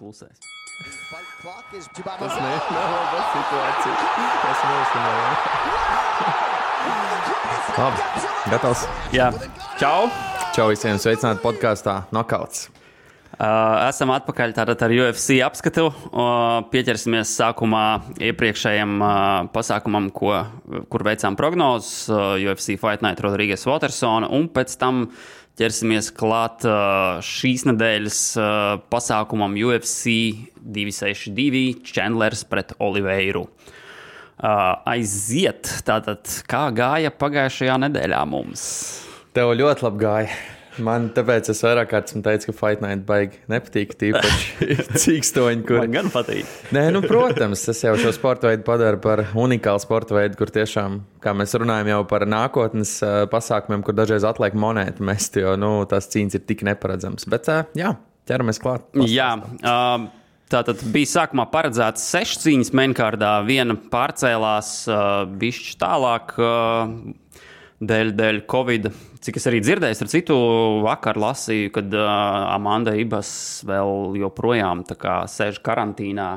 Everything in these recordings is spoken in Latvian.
klusēs. Tas nav situācija. Tas Labi, gatavs. Jā, čau! Čau visiem, sveicināti podkāstā Nokauts. Esam atpakaļ tātad ar UFC apskatu. Pieķersimies sākumā iepriekšējam pasākumam, kur veicām prognozes. UFC Fight Night Rodriguez Watersona, un pēc tam ķersimies klāt šīs nedēļas pasākumam UFC 262 Chandlers pret Oliveiru. Aiziet, tātad kā gāja pagājušajā nedēļā mums? Tev ļoti labi gāja. Man tāpēc es vairāk kārtas teicu, ka Fight Night baigi nepatīk, tīpaši cīkstoņi, kur... Man gan patīk. Nē, nu, protams, tas jau šo sporta veidu padara par unikālu sporta veidu, kur tiešām, kā mēs runājam jau par nākotnes pasākumiem, kur dažreiz atliek monētu mest, jo, tās cīņas ir tik neparedzams. Bet, jā, ķeramies klāt. Jā, tātad bija sākumā paredzēts 6 cīņas mainkārdā, viena pārcēlās bišķi tālāk dēļ Covid. Cik es arī dzirdēju, ar citu vakar lasīju, kad Amanda Ibas vēl joprojām tā kā sēž karantīnā,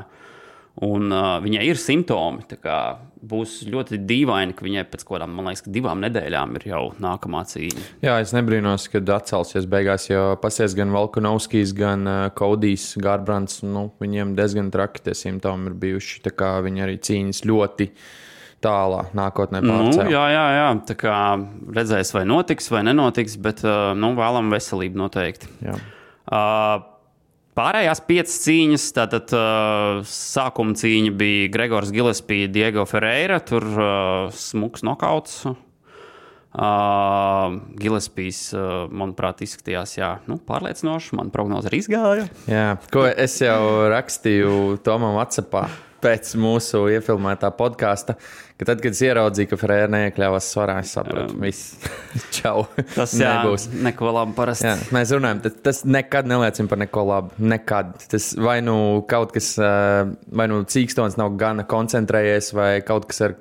un viņai ir simptomi. Tā kā būs ļoti dīvaini, ka viņai pēc kādām, man liekas, 2 nedēļām ir jau nākamā cīņa. Jā, es nebrīnos, kad atcelsies beigās, jo pasies gan Volkanovskis, gan Kodijs, Garbrands, viņiem diezgan traki tie simptomi ir bijuši, tā kā viņi arī cīņas ļoti tālā nākotnē pārcēl. Jā. Tā kā redzēs, vai notiks, vai nenotiks, bet vēlam veselību noteikti. Jā. Pārējās 5 cīņas, tātad sākuma cīņa bija Gregors Gillespie, Diego Ferreira, tur smuks nokauts. Gillespies, manuprāt, izskatījās, pārliecinoši, man prognoze arī izgāja. Jā, ko es jau rakstīju Tomam WhatsAppā pēc mūsu iefilmētā podkāsta, ka tad, kad es ieraudzīju, ka Ferēra neiekļāvās svarā, es sapratu, viss, čau, tas nebūs. Neko labi parasti. Jā, mēs runājam, tas nekad neliecina par neko labu, nekad. Tas vai kaut kas, vai cīkstons nav gana koncentrējies, vai kaut kas ar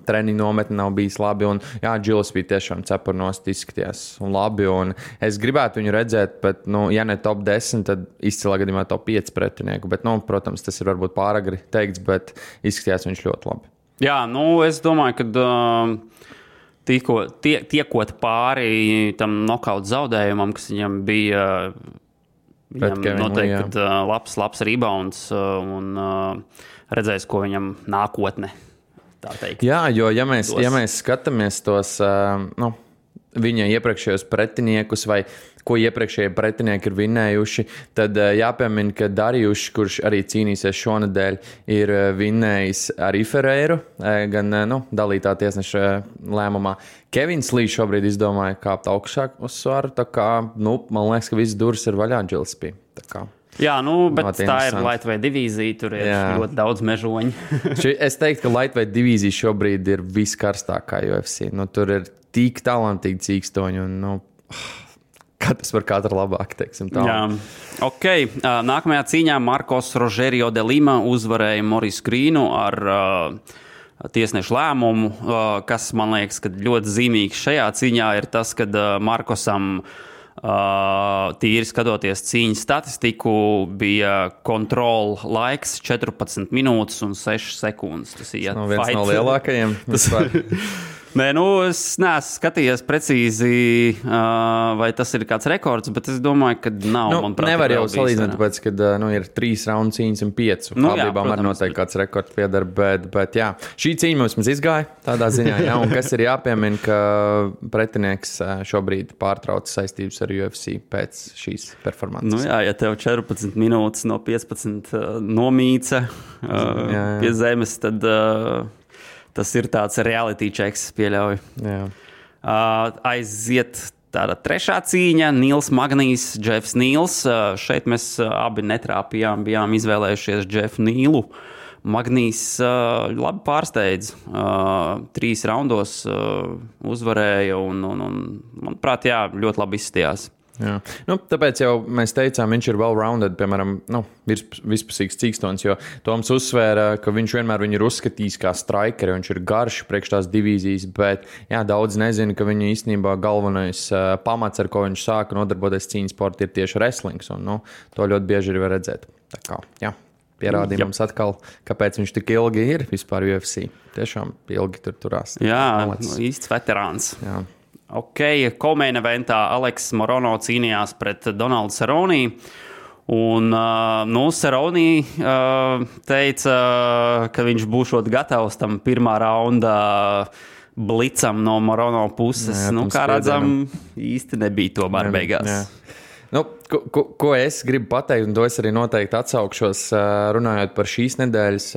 treniņu nometni nav bijis labi, un Gillespie tiešām cepurnost izskatījās un labi, un es gribētu viņu redzēt, bet, ja ne top 10, tad izcilā gadījumā top 5 pretinieku, bet, protams, tas ir varbūt pāragri teikt, bet izskatījās viņš ļoti labi. Jā, es domāju, ka tiekot pāri tam nokautu zaudējumam, kas viņam bija, viņam noteikti labs rebounds un redzēs, ko viņam nākotne, tā teikt. Jā, jo ja mēs skatāmies tos viņa iepriekšējos pretiniekus vai ko iepriekšējie pretinieki ir vinnējuši, tad jāpiemina, ka Darjušs, kurš arī cīnīsies šonedēļ, ir vinnējis arī Ferreiru, gan dalītā tiesneša lēmumā. Kevins Lī šobrīd izdomāja kāpt augšāk uz svaru, tā kā, man liekas, ka viss durvis ir vaļā Gillespie. Jā, bet tā ir lightweight divīzija, tur ir ļoti daudz mežoņu. Es teiktu, ka lightweight divīzija šobrīd ir viskarstākā UFC. Tur ir tik talantīgi cīkstoņi un, katrs var katru labāk, teiksim tā. Jā, ok. Nākamajā cīņā Marcos Rogerio de Lima uzvarēja Maurice Grīnu ar tiesnešu lēmumu, kas, man liekas, ka ļoti zīmīgs šajā cīņā ir tas, kad Markosam tīri skatoties cīņas statistiku, bija kontrola laiks 14 minūtes un 6 sekundes. Tas ir viens no lielākajiem. Nē, es neesmu skatījies precīzi, vai tas ir kāds rekords, bet es domāju, ka nav. Nevar jau salīdzināt, tāpēc, kad ir 3 raundu cīņas un 5. Kādībām arī noteikti kāds rekords piedara, bet jā. Šī cīņa mums izgāja tādā ziņā, un kas ir jāpiemina, ka pretinieks šobrīd pārtrauc saistības ar UFC pēc šīs performances. Ja tev 14 minūtes no 15 nomīca pie zemes, tad... Tas ir tāds reality checks, pieļauju. Jā. Aiziet tāda trešā cīņa, Nils Magnijs, Jeffs Nīls. Šeit mēs abi netrāpījām, bijām izvēlējušies Jeffu Nīlu. Magnijs labi pārsteidz. 3 raundos uzvarēja un manuprāt, ļoti labi izskatījās. Jā. Tāpēc jau mēs teicām, viņš ir well-rounded, piemēram, vispusīgs cīkstons, jo Toms uzsvēra, ka viņš vienmēr viņu ir uzskatījis kā strikeri, viņš ir garš priekš tās divīzijas, bet daudz nezina, ka viņa īstenībā galvenais pamats, ar ko viņš sāka nodarboties cīņas sporta, ir tieši wrestlings, un to ļoti bieži arī var redzēt. Tā kā, jā, pierādīja mums atkal, kāpēc viņš tik ilgi ir vispār UFC. Tiešām ilgi tur turās. Jā, īsts veterāns. Jā. Ok, co-main eventā Aleks Morono cīnījās pret Donaldu Cerrone. Un Cerrone teica, ka viņš būšot gatavs tam pirmā raunda blicam no Morono puses. Jā, kā redzam, īsti nebija tomēr beigās. Jā. Ko es gribu pateikt, un to es arī noteikti atsaukšos, runājot par šīs nedēļas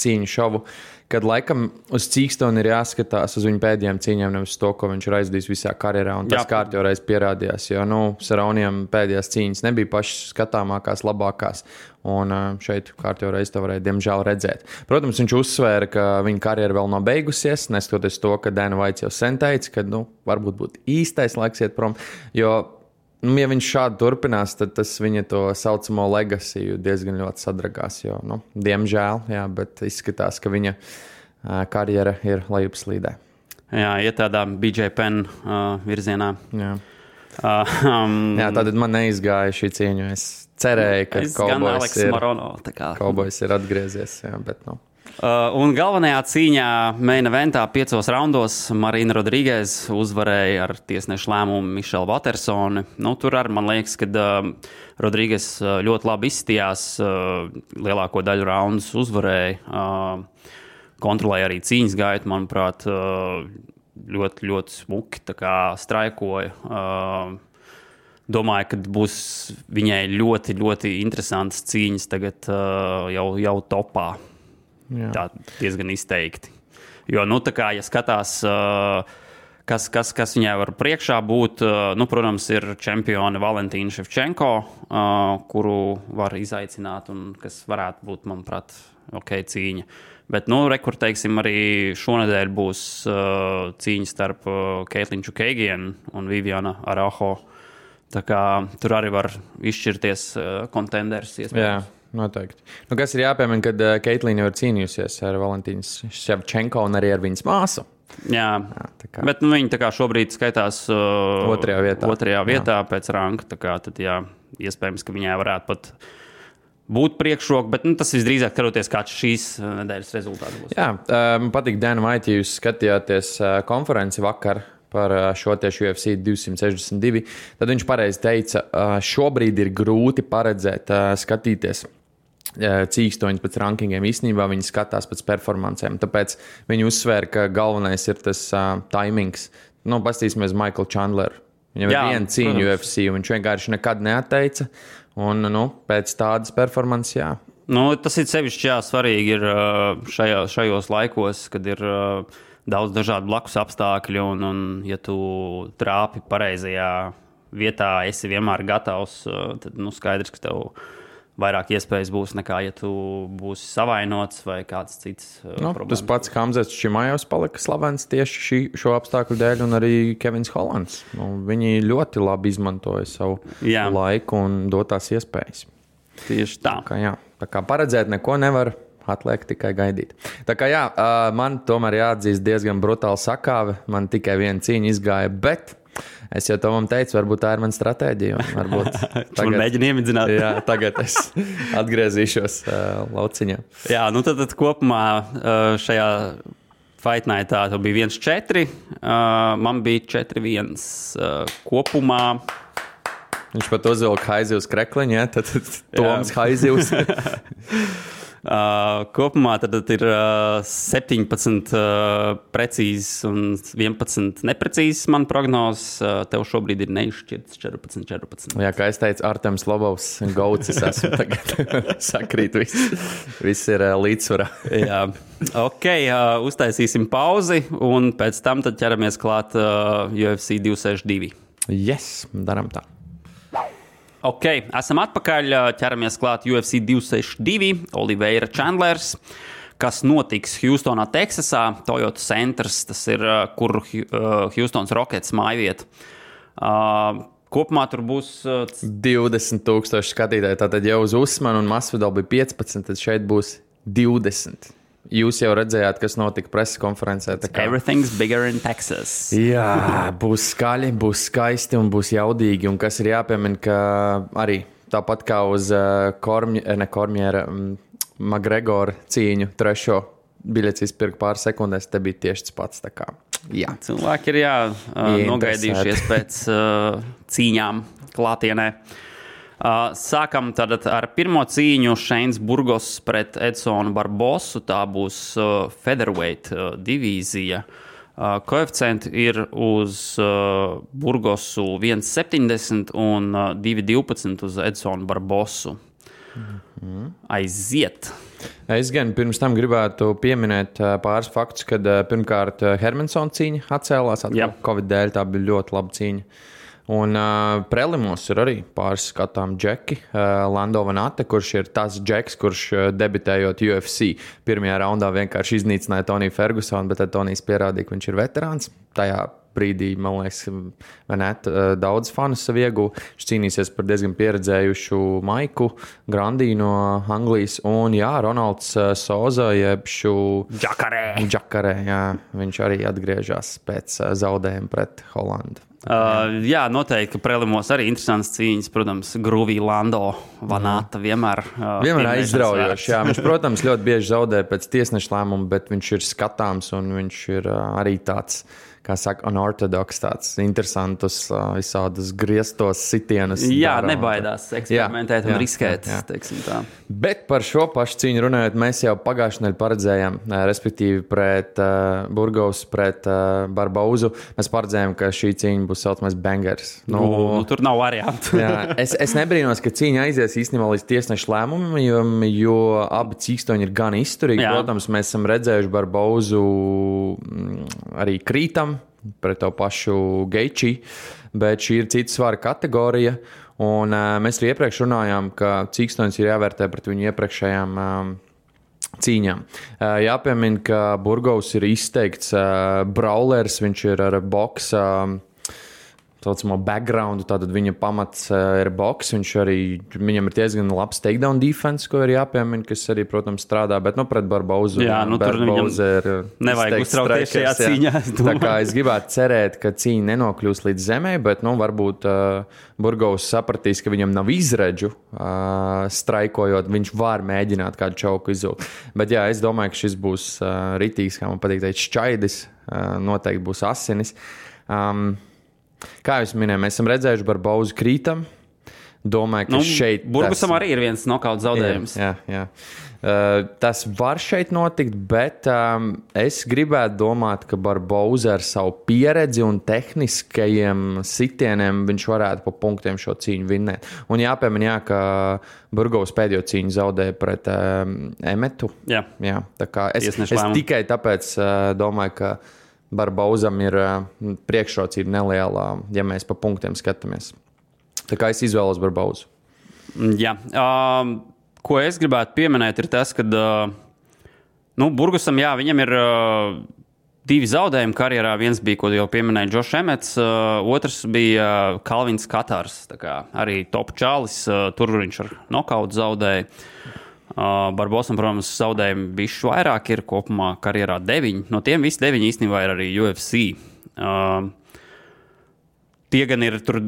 cīņu šovu, kad laikam uz Cīkstonu ir jāskatās uz viņu pēdējām cīņām, nevis to, ko viņš ir aizdījis visā karjerā, un tas kārtjoreiz pierādījās, jo, Cerroniem pēdējās cīņas nebija pašas skatāmākās, labākās, un šeit kārtjoreiz to varēja, diemžēl, redzēt. Protams, viņš uzsvēra, ka viņa karjera vēl nav beigusies, neskatoties to, ka Dana White jau sen teica, ka, varbūt būtu īstais laiks iet prom, jo ja viņš šādi turpinās, tad tas viņa to saucamo legacy diezgan ļoti sadragās. Jo, diemžēl, jā, bet izskatās, ka viņa karjera ir lejupslīdē. Jā, iet tādā BJ Penn virzienā. Jā. Jā, tātad man neizgāja šī cīņa. Es cerēju, ka Cowboys ir atgriezies, jā, bet Un galvenajā cīņā main eventā 5 raundos Marina Rodriguez uzvarēja ar tiesnešu lēmumu Michelle Watersoni. Tur arī man liekas, ka Rodriguez ļoti labi izstījās, lielāko daļu raundus uzvarēja, kontrolēja arī cīņas gaitu, manuprāt, ļoti, ļoti smuki straikoja. Domāju, ka būs viņai ļoti, ļoti interesantas cīņas tagad jau topā. Jā. Tā diezgan izteikti. Jo, ja skatās, kas viņai var priekšā būt, protams, ir čempione Valentīna Ševčenko, kuru var izaicināt un kas varētu būt, manuprāt, cīņa. Bet, teiksim, arī šonedēļ būs cīņa starp Caitlin Chookagian un Viviana Araujo. Tā kā tur arī var izšķirties kontenders iespējams. Jā. Noteikti. Kas ir jāpiemina, kad Caitlin jau ir cīnījusies ar Valentīnu Ševčenko un arī ar viņas māsu. Jā, bet viņa šobrīd skaitās otrajā vietā pēc ranka. Tad, iespējams, ka viņai varētu pat būt priekšroka, bet tas visdrīzāk skatoties, kāds šīs nedēļas rezultāts būs. Jā, man patīk Dana White, ja jūs skatījāties konferenci vakar par šo tieši UFC 262, tad viņš pareizi teica, šobrīd ir grūti paredzēt, skatīties cīkstoņus pēc rankingiem. Īstenībā viņi skatās pēc performancēm, tāpēc viņi uzsvēra, ka galvenais ir tas timings. Pastīsimies Michael Chandler. Viņam ir viena cīņa UFC, un viņš vienkārši nekad neatteica, un pēc tādas performances, jā. Tas ir sevišķi svarīgi ir šajos laikos, kad ir daudz dažādu blakus apstākļu, un ja tu trāpi pareizajā vietā, esi vienmēr gatavs, tad skaidrs, ka tev vairāk iespējas būs nekā, ja tu būsi savainots vai kāds cits problēmas. Tas pats Hamzats Čimājovs palika slavens tieši šo apstākļu dēļ, un arī Kevins Hollands. Viņi ļoti labi izmantoja savu laiku un dotās iespējas. Tieši tā. Tā kā paredzēt neko nevar. Atliek tikai gaidīt. Tā kā man tomēr jāatzīst diezgan brutāli sakāve. Man tikai viena cīņa izgāja, bet es jau to man teicu, varbūt tā ir mana stratēģija. Tagad mēģinu iemidzināt. Jā, tagad es atgriezīšos lauciņā. Jā, tad kopumā šajā Fight Nightā bija 1-4. Man bija 4-1 kopumā. Viņš pat uzvilka Haizivs krekliņu, ja? Tad Toms Haizivs. Kopumā tad ir 17 precīzes un 11 neprecīzes man prognozes. Tev šobrīd ir neizšķirts 14. Jā, kā es teicu, Artems Lobovs, Gauts, es esmu tagad sakrīt, viss ir līdzsvarā. Jā, ok, uztaisīsim pauzi un pēc tam tad ķeramies klāt UFC 262. Yes, daram tā. Ok, esam atpakaļ, ķeramies klāt UFC 262, Oliveira Chandlers, kas notiks Hjūstonā, Teksasā, Toyota Centers, tas ir, kur Hjūstons Rockets mājvieta. Kopumā tur būs 20,000 skatītāji, tātad jau uz Usmanu un Masvidal bija 15, tad šeit būs 20. Jūs jau redzējāt, kas notika preses konferencē. Everything's bigger in Texas. Jā, būs skaļi, būs skaisti un būs jaudīgi. Un kas ir jāpiemina, ka arī tāpat kā uz Kormiera Magregora cīņu trešo biļets izpirka pāris sekundēs, te bija tieši tas pats. Tā kā, jā. Cilvēki ir nogaidījušies pēc cīņām klātienē. Sākam tad ar pirmo cīņu Šeins Burgos pret Edsonu Barbosu. Tā būs featherweight divīzija. Koeficienti ir uz Burgosu 1,70 un 2,12 uz Edsonu Barbosu. Aiziet! Es gan pirms tam gribētu pieminēt pāris faktus, kad pirmkārt Hermansona cīņa atcēlās. Covid dēļ tā bija ļoti laba cīņa. Un prelimos ir arī pāris skatām džeki. Lando Vanate, kurš ir tas džeks, kurš debitējot UFC pirmajā raundā vienkārši iznīcināja Toniju Fergusonu, bet tad Tonijs pierādīja, ka viņš ir veterāns. Tajā brīdī, man liekas, Vanate daudz fanu sev ieguva. Viņš cīnīsies par diezgan pieredzējušu Maiku Grandī no Anglijas. Un jā, Ronalds Soza, jebšu Džakarē, jā, viņš arī atgriežas pēc zaudējuma pret Holandu. Jā, noteikti, ka prelimos arī interesants cīņas. Protams, Gruvī Lando Vanata vienmēr aizraujoši. Jā, viņš, protams, ļoti bieži zaudē pēc tiesneša lēmuma, bet viņš ir skatāms un viņš ir arī tāds, kā saka, unorthodoks, tāds interesantus, visādus grieztos sitienus. Jā, nebaidās eksperimentēt un riskēt, teiksim tā. Bet par šo pašu cīņu runājot, mēs jau pagājušajā nedēļā paredzējām, respektīvi pret Burgos, pret Barbauzu. Mēs paredzējām, ka šī cīņa būs saucamais bangers. Tur nav variantu. Es nebrīnos, ka cīņa aizies īstenībā līdz tiesneša lēmumam, jo abi cīkstoņi ir gan izturīgi. Protams, mēs esam redzējuši Barbauzu arī krītam pret to pašu Geiči, bet šī ir cita svara kategorija. Un mēs arī iepriekš runājām, ka cīkstoņus ir jāvērtē pret viņu iepriekšējām cīņām. Jāpiemina, ka Burgos ir izteikts brawlers, viņš ir ar boksa saucamo backgroundu, tātad viņa pamats ir boks, viņam ir diezgan labs takedown defense, ko ir jāpiemina, kas arī, protams, strādā, bet pret Barbauzu. Jā, tur viņam nevajag uztraukties šajā cīņā. Tā kā es gribētu cerēt, ka cīņa nenokļūs līdz zemē, bet, varbūt Burgos sapratīs, ka viņam nav izredžu straikojot, viņš var mēģināt kādu čauku izzūkt. Bet jā, es domāju, ka šis būs ritīgs, kā man patīk teikt, šķaidis, noteikti būs asinis. Kā jūs minējāt, mēs esam redzējuši Barbauzu krītam. Domāju, ka šeit... Burgusam arī ir viens nokauts zaudējums. Jā. Tas var šeit notikt, bet es gribētu domāt, ka Barbauza ar savu pieredzi un tehniskajiem sitieniem viņš varētu pa punktiem šo cīņu vinnēt. Un jāpiemina, ka Burgos pēdējo cīņu zaudēja pret Emetu. Jā. Tā kā es tikai tāpēc domāju, ka Barbauzam ir priekšrocība neliela, ja mēs pa punktiem skatāmies. Tā kā es izvēlos Barbauzu. Jā. Ko es gribētu pieminēt, ir tas, ka Burgusam, jā, viņam ir divi zaudējumi karjerā. Viens bija, ko jau pieminēja Džošs Emets, otrs bija Kalvins Katars. Tā kā arī top čalis, tur viņš ar nokautu zaudēja. Barbosam, protams, zaudējumi bišķi vairāk ir kopumā karjerā 9. No tiem visi 9 īstenībā ir arī UFC. Tie gan ir tur,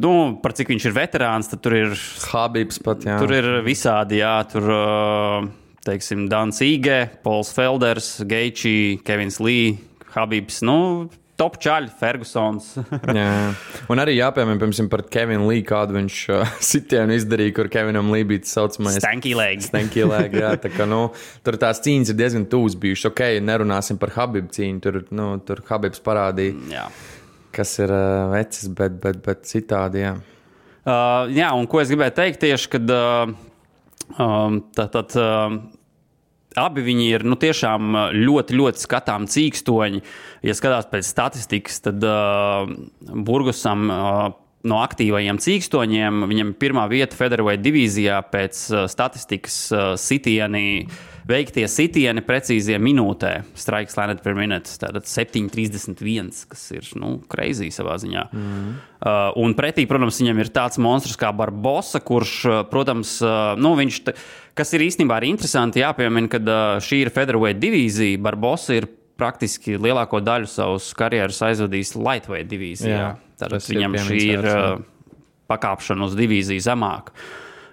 par cik viņš ir veterāns, tad tur ir Habibs pat, jā. Tur ir visādi, jā, tur, teiksim, Dans Ige, Pols Felders, Geiči, Kevins Lee, Habibs, top čaļi, Fergusons. Jā. Un arī jāpiemēr, piemēram, par Kevinu Lee, kādu viņš sitienu izdarīja, kur Kevinam Lee bija tas saucamais Stanky leg, jā. Tā kā, tur tās cīņas ir diezgan tūs bijušas. Ok, nerunāsim par Habibu cīņu, tur Habibs parādīja, kas ir vecis, bet citādi, jā. Jā, un ko es gribēju teikt tieši, kad abi viņi ir tiešām ļoti, ļoti skatām cīkstoņi. Ja skatās pēc statistikas, tad Burgusam no aktīvajiem cīkstoņiem viņam pirmā vieta featherweight divīzijā pēc statistikas veiktie sitieni precīzie minūtē. Strikes landed per minute. Tātad 7,31, kas ir crazy savā ziņā. Un pretī, protams, viņam ir tāds monstrs kā Barbosa, kurš, protams, viņš... Kas ir īstenībā arī interesanti jāpiemina, kad šī ir featherweight divīzija. Barbosa ir praktiski lielāko daļu savus karjeras aizvadījis lightweight divīzijā. Tātad viņam šī ir pakāpšana uz divīziju zemāk.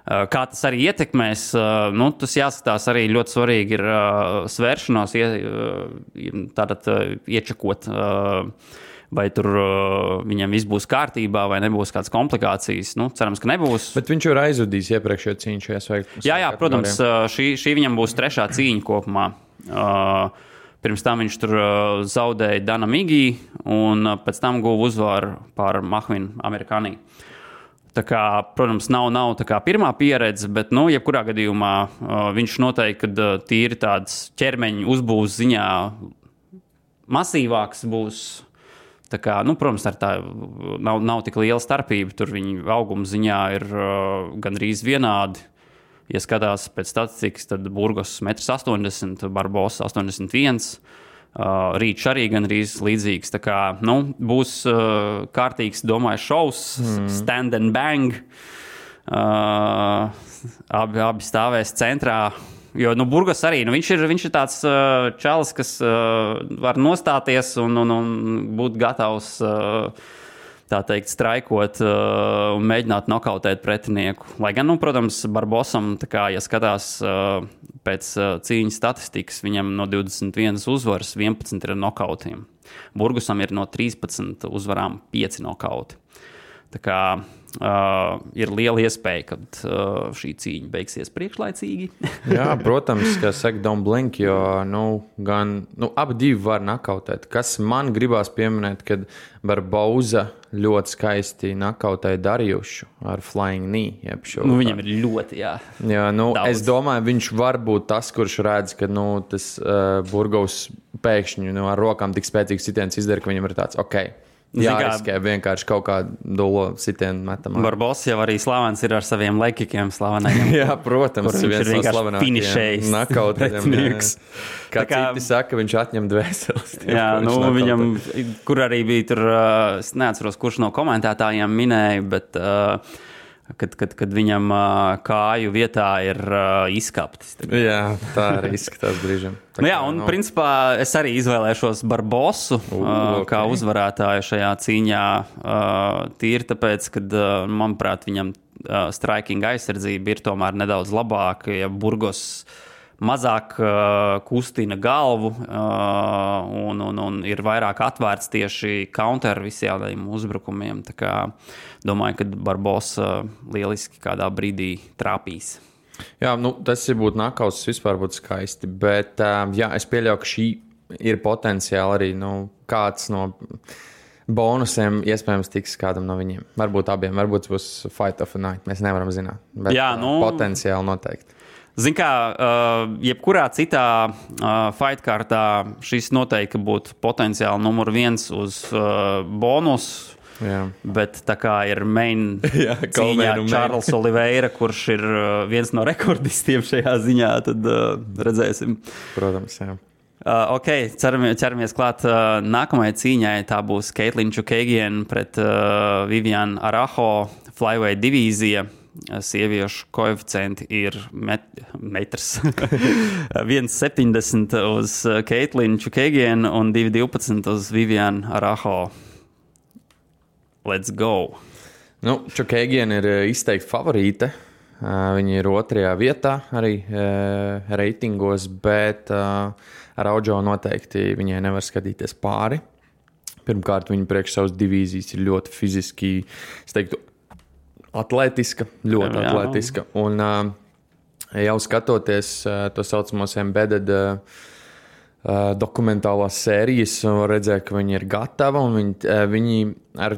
Kā tas arī ietekmēs, tas jāskatās arī ļoti svarīgi ir svēršanos, tātad iečakot, vai tur viņam viss būs kārtībā, vai nebūs kādas komplikācijas. Cerams, ka nebūs. Bet viņš jau ir aizvadījis iepriekšējo cīņu šajā sveiktu. Jā, protams, šī viņam būs 3. cīņa kopumā. Pirms tam viņš tur zaudēja Dana Migī, un pēc tam guva uzvaru pār Mahvinu Amerikānī. Tā kā, protams, nav tā kā pirmā pieredze, bet, jebkurā gadījumā viņš noteikti, kad tīri tāds ķermeņa uzbūves ziņā masīvāks būs. Tā kā, protams, tā nav tik liela starpība. Tur viņa auguma ziņā ir gandrīz vienādi. Ja skatās pēc statistikas, tad Burgos 1,80 m, Barbosa 81 m. Rīčs arī gandrīz līdzīgs. Tā kā, būs kārtīgs, domāju, šovs, stand and bang. Abi stāvēs centrā. Jo Burgos arī, viņš ir tāds čalis, kas var nostāties un būt gatavs, tā teikt, straikot un mēģināt nokautēt pretinieku. Lai gan, protams, Barbosam, tā kā, ja skatās pēc cīņas statistikas, viņam no 21 uzvaras 11 ir nokautiem. Burgosam ir no 13 uzvarām 5 nokauti. Tā kā ir liela iespēja, ka šī cīņa beigsies priekšlaicīgi. Jā, protams, ka saka don't blink, jo abi divi var nakautēt. Kas man gribās pieminēt, kad Barboza ļoti skaisti nakautēja Darijušu ar flying knee. Viņam ir ļoti, jā. Jā, es domāju, viņš var būt tas, kurš redz, ka tas Burgos pēkšņi ar rokām tik spēcīgs sitiens izdara, ka viņam ir tāds, jāriskē vienkārši kaut kādu dolo sitienu metam. Barbosa jau arī slavens ir ar saviem lekikiem slavenajiem. Jā, protams, viņš ir vienkārši finišējis. Nakauts. Kā citi saka, viņš atņem dvēseles. Jā, viņam, kur arī bija tur, es neatceros, kurš no komentētājiem minēja, bet kad viņam kāju vietā ir izkaptis. Jā, tā arī izskatās brīžam. Principā es arī izvēlēšos Barbosu kā uzvarētāju šajā cīņā tīri tāpēc, kad, manuprāt, viņam striking aizsardzība ir tomēr nedaudz labāka, ja Burgos mazāk kustina galvu un ir vairāk atvērts tieši counter visiem uzbrukumiem. Tā kā domāju, ka Barbosa lieliski kādā brīdī trāpīs. Jā, tas būtu nakauts, vispār būtu skaisti, bet es pieļauju, ka šī ir potenciāli arī kāds no bonusiem iespējams tiks kādam no viņiem. Varbūt abiem, varbūt būs fight of a night, mēs nevaram zināt, bet potenciāli noteikti. Zin kā, jebkurā citā fight kārtā šis noteikti būtu potenciāli numur 1 uz bonusu. Jā. Bet tā kā ir main cīņā Čārls Oliveira, kurš ir viens no rekordistiem šajā ziņā, tad redzēsim. Protams, jā. Ķeramies klāt nākamajai cīņai. Tā būs Caitlin Chookagian pret Viviane Araújo flyweight divīzija. Sieviešu koeficienti ir metrs 1,70 uz Caitlin Chookagian un 2,12 uz Viviane Araújo. Let's go! Chookagian ir izteikti favorīte. Viņa ir 2. vietā arī reitingos, bet Araújo noteikti viņai nevar skatīties pāri. Pirmkārt, viņa priekš savas divīzijas ir ļoti fiziski, es teiktu, atletiska, ļoti atletiska. Un jau skatoties to saucamos embedded dokumentālās sērijas, redzēja, ka viņi ir gatava. Viņi ar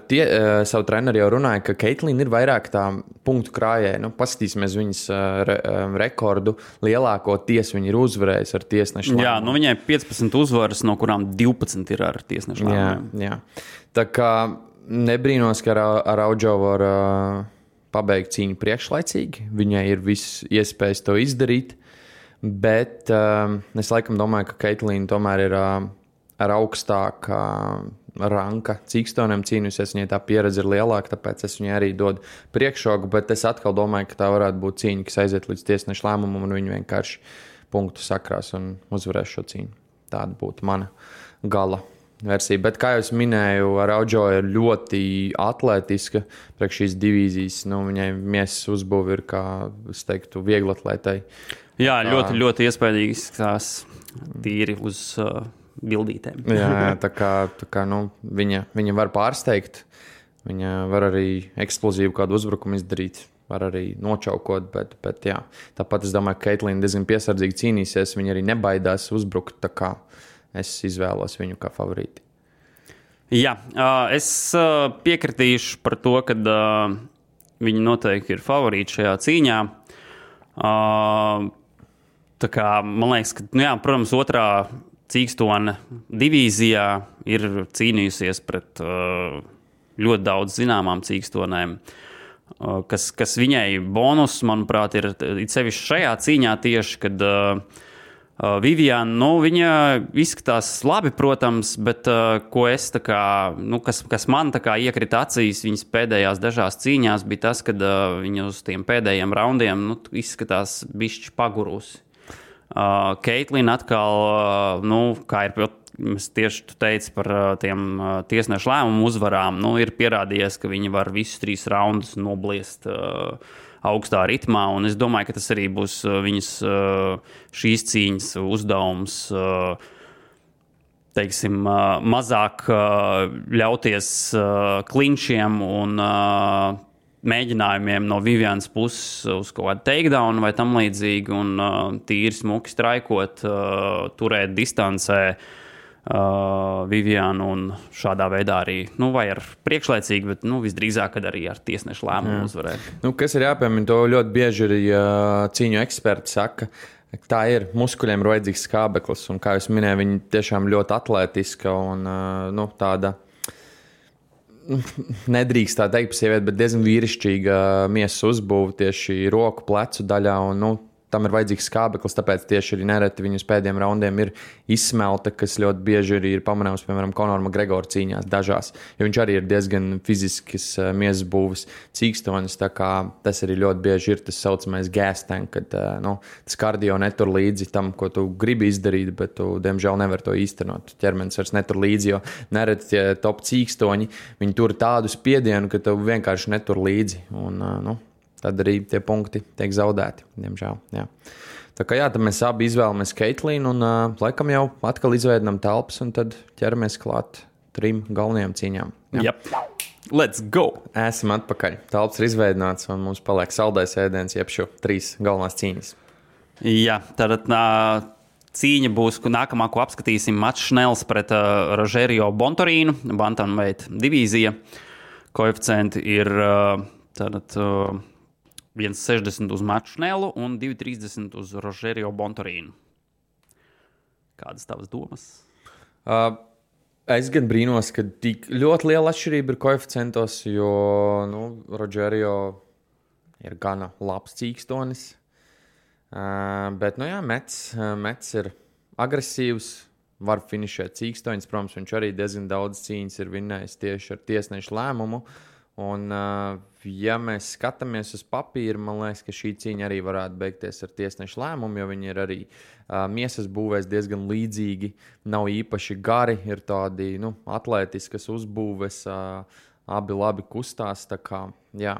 savu treneri jau runāja, ka Caitlin ir vairāk tā punktu krājēja. Paskatīsimies viņas rekordu. Lielākoties viņa ir uzvarējusi ar tiesnešu lēmumu. Viņai 15 uzvaras, no kurām 12 ir ar tiesnešu lēmumiem. Jā. Tā kā nebrīnos, ka Araújo var pabeigt cīņu priekšlaicīgi. Viņai ir viss iespējas to izdarīt. Bet es laikam domāju, ka Caitlin tomēr ir ar augstāku ranka cīkstoniņiem cīnījusies. Viņai tā pieredze ir lielāka, tāpēc es viņai arī dodu priekšroku. Bet es atkal domāju, ka tā varētu būt cīņa, kas aiziet līdz tiesneša lēmumam, un viņi vienkārši punktu sakrās un uzvarēs šo cīņu. Tāda būtu mana gala versija. Bet, kā jau minēju, Araujo ir ļoti atletiska priekš šīs divīzijas. Nu, viņai miesas uzbūve ir, kā es teiktu, vieglatlētai. Jā, ļoti, ļoti iespaidīgi izskatās tīri uz bildītēm. Jā, tā kā viņa var pārsteigt. Viņa var arī eksplozīvu kādu uzbrukumu izdarīt. Var arī nočaukot, bet jā. Tāpat es domāju, ka Keitlīna diezgan piesardzīgi cīnīsies. Viņa arī nebaidās uzbrukt, tā kā es izvēlos viņu kā favorīti. Jā, es piekritīšu par to, ka viņi noteikti ir favorīti šajā cīņā. Tā kā, man liekas, ka, nu jā, protams, otrā cīkstone divīzijā ir cīnījusies pret ļoti daudz zināmām cīkstonēm. Kas viņai bonus, manuprāt, ir sevišķi šajā cīņā tieši, kad Viviana, viņa izskatās labi, protams, bet ko es tā kā, kas man tā kā iekrita acīs viņas pēdējās dažās cīņās, bija tas, kad viņa uz tiem pēdējiem raundiem izskatās bišķi pagurusi. Keitlīna atkal, kā ir mēs tieši teicu par tiem tiesnešu lēmumu uzvarām, ir pierādījies, ka viņi var visus 3 raundus nobliest augstā ritmā, un es domāju, ka tas arī būs viņas šīs cīņas uzdevums, teiksim, mazāk ļauties klinčiem un mēģinājumiem no Vivianas puses uz kaut kādu takedown vai tam līdzīgi, un tīri smuki straikot, turēt distancē Vivianu un šādā veidā arī, vai ar priekšlaicīgi, bet visdrīzāk, kad arī ar tiesnešu lēmumu uzvarēt. Kas ir jāpiemina, to ļoti bieži arī cīņu eksperti saka, tā ir, muskuļiem ir vajadzīgs skābeklis, un kā jūs minēju, viņi tiešām ļoti atlētiska un tāda, nedrīkst tā teikt par sievieti, bet diezgan vīrišķīga miesas uzbūve tieši roku, plecu daļā, un tam ir vajadzīgs skābeklis, tāpēc tieši arī nereti viņus pēdējiem raundiem ir izsmelta, kas ļoti bieži arī ir pamanāms, piemēram, Conora McGregora cīņās dažās, jo viņš arī ir diezgan fiziskas miesas būves cīkstonis, tā kā tas arī ļoti bieži ir tas saucamais gas tank, kad tas kardio netur līdzi tam, ko tu gribi izdarīt, bet tu, diemžēl, nevar to īstenot. Ķermenis vairs netur līdzi, jo nereti tie top cīkstoņi, viņi tur tādu spiedienu, ka tu vienkārši netur līdzi, un, tad arī tie punkti tiek zaudēti, diemžēl. Jā. Tā kā tad mēs abi izvēlamies Keitlīnu un laikam jau atkal izveidinām telpas un tad ķeramies klāt 3 galvenajām cīņām. Jā. Let's go! Esam atpakaļ. Telpas ir izveidināts un mums paliek saldais ēdiens, jeb šo 3 galvenās cīņas. Jā, tad cīņa būs, nākamā, ko apskatīsim, Mats Šnels pret Rogerio Bontorīnu, bantamweight divīzija. Koeficienti ir 1,60 uz Matu Šnelu un 2,30 uz Rogerio Bontorīnu. Kādas tavas domas? Es gan brīnos, ka tik ļoti liela atšķirība ir koeficientos, jo Rogerio ir gana labs cīkstonis. Bet, Mets ir agresīvs, var finišēt cīkstoņus. Protams, viņš arī diezgan daudz cīņas ir vinnējis tieši ar tiesnešu lēmumu. Un, ja mēs skatāmies uz papīru, man liekas, ka šī cīņa arī varētu beigties ar tiesnešu lēmumu, jo viņi ir arī miesas būvēs diezgan līdzīgi, nav īpaši gari, ir tādi atlētiskas uzbūves, abi labi kustās. Tā kā, jā.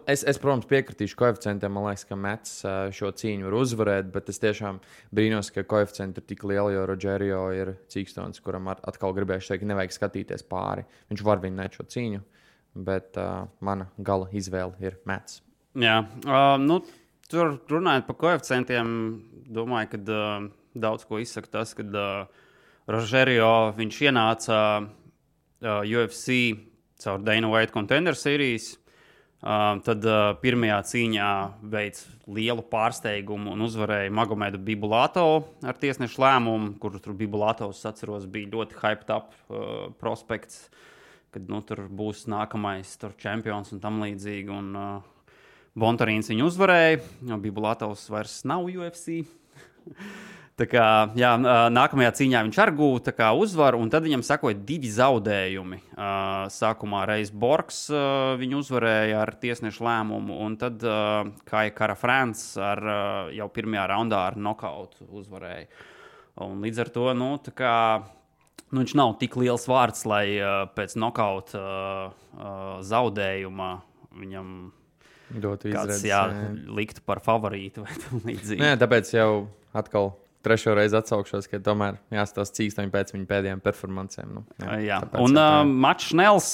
Es, protams, piekritīšu koeficientiem, man liekas, ka Mets šo cīņu var uzvarēt, bet es tiešām brīnos, ka koeficienti ir tik lieli, jo Rogerio ir cīkstonis, kuram atkal gribējuši teikt, nevajag skatīties pāri. Viņš var vinnēt šo cīņu. Bet mana gala izvēle ir Mets. Jā, tur runājot par koeficientiem, domāju, ka daudz ko izsaka tas, kad Rogerio viņš ienāca UFC caur Dana White Contender Series, tad pirmajā cīņā veids lielu pārsteigumu un uzvarēja Magomedu Bibulatovu ar tiesnešu lēmumu, kur tur Bibulatovs, atceros, bija ļoti hyped up prospekts, kad tur būs nākamais čempions un tam līdzīgi. Un Bontorīns viņu uzvarēja, jo Bibulatovs vairs nav UFC. Tā kā, jā, nākamajā cīņā viņš arī gūta uzvaru, un tad viņam sakoja 2 zaudējumi. Sākumā reiz Borgs viņu uzvarēja ar tiesnešu lēmumu, un tad Kai Kara France jau pirmajā raundā ar nokautu uzvarēja. Un līdz ar to, tā kā viņš nav tik liels vārds, lai pēc nokauta zaudējuma viņam kāds liktu par favorītu vai tam līdzīgi. Nē, tāpēc jau atkal trešo reizi atsaukšos, ka tomēr jāstāsta cīkstoņi pēc viņa pēdējām performancēm. Un Mats Šnels,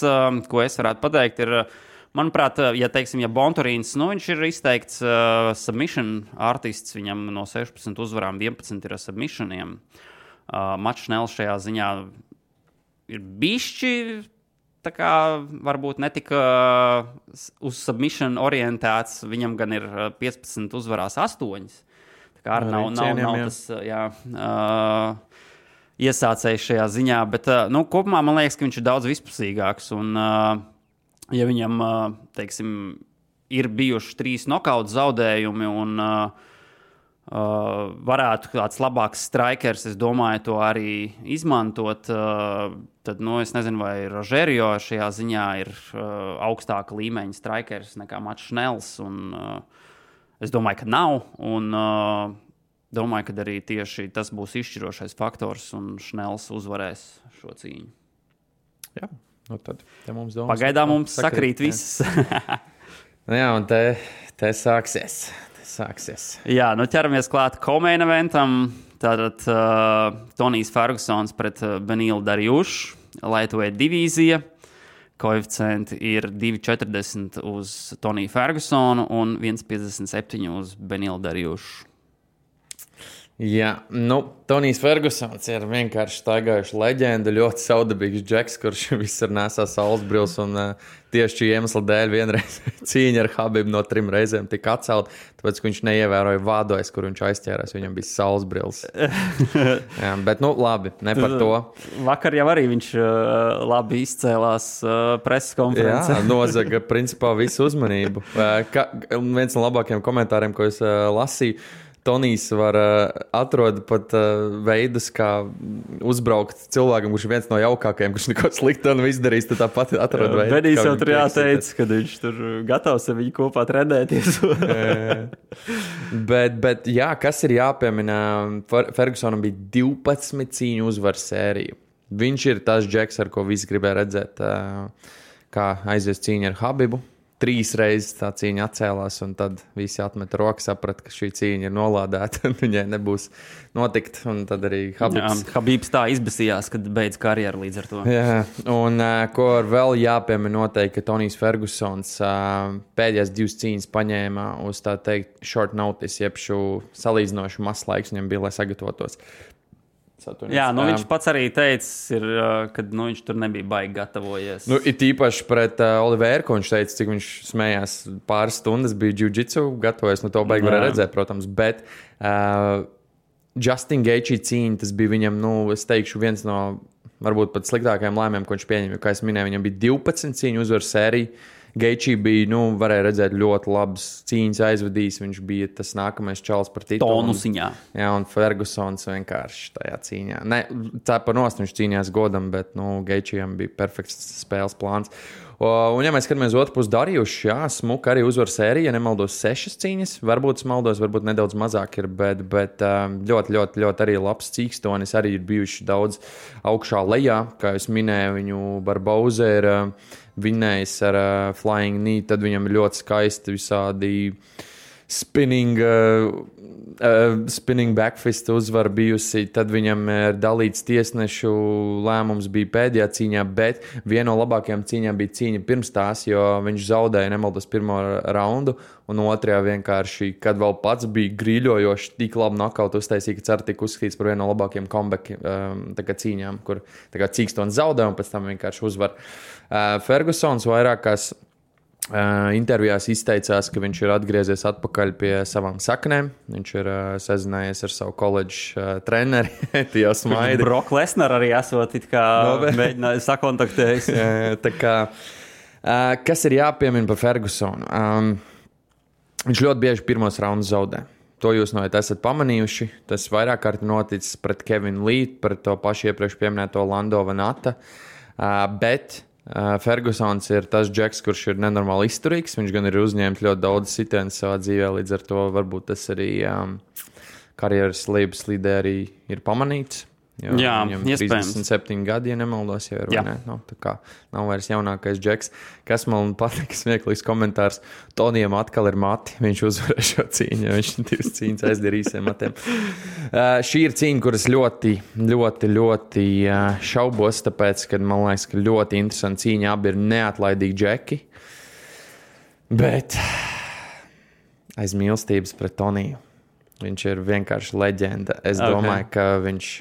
ko es varētu pateikt, ir, manuprāt, ja Bonturīns, viņš ir izteikts submission artists, viņam no 16 uzvarām 11 ir submissioniem. Mats Šnels šajā ziņā ir bišķi, tā kā varbūt netika uz submission orientēts, viņam gan ir 15 uzvarās 8. Tā kā nav tas iesācējs šajā ziņā, bet kopumā man liekas, ka viņš ir daudz vispusīgāks. Un, ja viņam, ir bijuši 3 nokautu zaudējumi un varētu kāds labāks strikers, es domāju, to arī izmantot, tad, es nezinu, vai Rogerio šajā ziņā ir augstāka līmeņa strikers nekā Mats Šnels, un es domāju, ka nav, un domāju, ka arī tieši tas būs izšķirošais faktors, un Šnels uzvarēs šo cīņu. Jā, tad mums domas. Pagaidām mums sakrīt viss. Jā, un te sāksies. Jā, ķeramies klāt co-main eventam. Tātad Tonijs Fergusons pret Benilu Darjušu, lightweight divīzija. Koeficienti ir 2,40 uz Toniju Fergusonu un 1,57 uz Benilu Darjušu. Jā, Tonijs Fergusons ir vienkārši staigājuši leģenda, ļoti saudabīgs džeks, kurš visur nesā saulesbrils, un tieši šī iemesla dēļ vienreiz cīņa ar Habibu no 3 reizēm tika atcelt, tāpēc, ka viņš neievēroja vādojas, kur viņš aizķērās, viņam bija saulesbrils. Jā, bet, labi, ne par to. Vakar jau arī viņš labi izcēlās preses konferencē. Jā, nozaga principā visu uzmanību. Viens no labākajiem komentāriem, ko es lasīju, Tonijs var atrast pat veidus, kā uzbraukt cilvēkam, kurš ir viens no jaukākajiem, kurš neko sliktu nav izdarījis. Tad tāpat atrada veidu. Benijs jau tur jāteic, ka viņš tur gatavs ar viņu kopā trenēties. bet jā, kas ir jāpiemina? Fergusonam bija 12 cīņu uzvaru sērija. Viņš ir tas džeks, ar ko visi gribēja redzēt, kā aizies cīņa ar Habibu. 3 reizes tā cīņa atcēlās, un tad visi atmeta rokas, saprata, ka šī cīņa ir nolādēta, un viņai nebūs notikt. Un tad arī Habibs tā izbesījās, kad beidz karjeru līdz ar to. Jā, un ko vēl jāpiemina noteikti, ka Tonijs Fergusons pēdējās 2 cīņas paņēma uz tā teikt short notice, jeb šo salīdzinošu maz laiks viņam bija, lai sagatavotos. Jā, viņš pats arī teica, ka viņš tur nebija baigi gatavojies. It īpaši pret Oliveru, ko viņš teica, cik viņš smējās pāris stundas, bija jiu-jitsu gatavojies, to baigi varēja redzēt, protams, bet Justin Gaethje cīņa, tas bija viņam, es teikšu, viens no varbūt pat sliktākajiem lēmumiem, ko viņš pieņēma, jo, kā es minēju, viņam bija 12 cīņu uzvaru sērija. Gaethje bija, varēja redzēt ļoti labas cīņas aizvadījis. Viņš bija tas nākamais čalis par titulu. Tonusiņā. Jā, un Fergusons vienkārši tajā cīņā. Ne, tā par nost viņš cīnījās godam, bet, Gaethjem bija perfekts spēles plāns. Un, ja mēs skatāmies otru pusi Darjušu, jā, smuka arī uzvaru sērija, ja nemaldos 6 cīņas. Varbūt es maldos, varbūt nedaudz mazāk ir, bet ļoti, ļoti, ļoti arī labs cīkstonis. Arī ir bijuši daudz augšā lejā, kā es minēju, viņu Barboza ir vinnējis ar flying knee, tad viņam ir ļoti skaisti visādi spinning backfist uzvara bijusi, tad viņam ir dalīts tiesnešu lēmums bija pēdējā cīņā, bet viena no labākajām cīņām bija cīņa pirms tās, jo viņš zaudēja nemaldos pirmo raundu, un otrajā vienkārši, kad vēl pats bija grīļojoši, tik labi nokautu uztaisīja, ka cer tika uzskatīts par vienu no labākajiem comeback cīņām, kur cīkstons zaudē un pēc tam vienkārši uzvar. Fergusons vairākās intervijās izteicās, ka viņš ir atgriezies atpakaļ pie savām saknēm. Viņš ir sazinājies ar savu koledžu treneri. Tie smaidi. Brock Lesnar arī esot it kā mēģināja sakontaktējis. Tā kā, kas ir jāpiemina par Fergusonu? Viņš ļoti bieži pirmos raundus zaudē. To jūs noteikti esat pamanījuši. Tas vairāk kārt noticis pret Kevinu Lee, pret to pašu iepriekš pieminēto Lando Vanata. Bet Fergusons ir tas džeks, kurš ir nenormāli izturīgs. Viņš gan ir uzņēmis ļoti daudz sitienas savā dzīvē, līdz ar to varbūt tas arī karjeras lejuslīdē arī ir pamanīts. Jā, viņam iespējams. 37 gadi, ja nemaldos, jau ir, vai ne? Nu, tā kā nav vairs jaunākais Džeks. Kas man patīk, smieklīgs komentārs, Tonijam atkal ir mati, viņš uzvarēja šo cīņu, viņš 2 cīņas aizdara īsiem matiem. Šī ir cīņa, kuras ļoti šaubos, tāpēc, ka man liekas, ka ļoti interesanti cīņa, abi ir neatlaidīgi Džeki, bet aiz mīlestības pret Toniju. Viņš ir vienkārši leģenda. Es domāju, ka viņš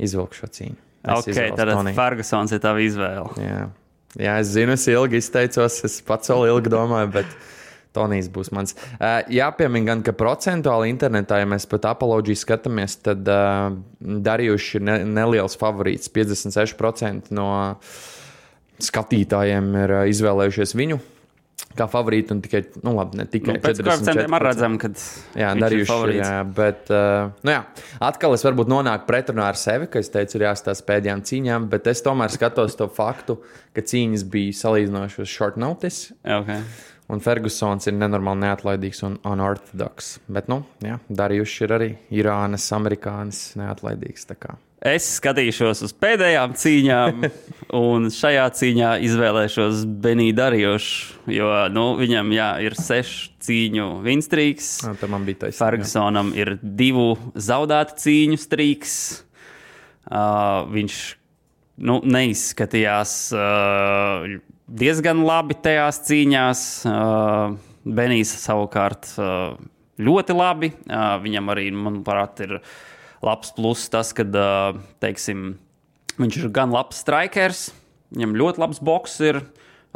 izvilk šo cīņu. Tad Fergusons ir tava izvēle. Jā, es zinu, es ilgi izteicos, es pats vēl ilgi domāju, bet Tonijs būs mans. Jāpiemina gan, ka procentuāli internetā, ja mēs pat Apoloģiju skatāmies, tad Darījuši ir neliels favorīts. 56% no skatītājiem ir izvēlējušies viņu kā favorītu, un tikai, ne tikai 44%. Pēc koeficientiem arī redzam, kad viņš ir favorīts. Bet, atkal es varbūt nonāku pretrunā ar sevi, ka es teicu, ir jāstāsta pēdējām cīņām, bet es tomēr skatos to faktu, ka cīņas bija salīdzinoši uz short notice. Okay. Un Fergusons ir nenormāli neatlaidīgs un unorthodoks. Bet, Darījuši ir arī Irānas, amerikānis neatlaidīgs, tā kā. Es skatīšos uz pēdējām cīņām, un šajā cīņā izvēlēšos Benī Darījušu, jo viņam ir 6 cīņu winstrīks. Man bija taisnība. Fergusonam ir 2 zaudētu cīņu strīks. Viņš neizskatījās diezgan labi tajās cīņās. Benijs savukārt ļoti labi. Viņam arī, manuprāt, ir labs pluss tas, ka, teiksim, viņš ir gan labs strikers, viņam ļoti labs boks ir,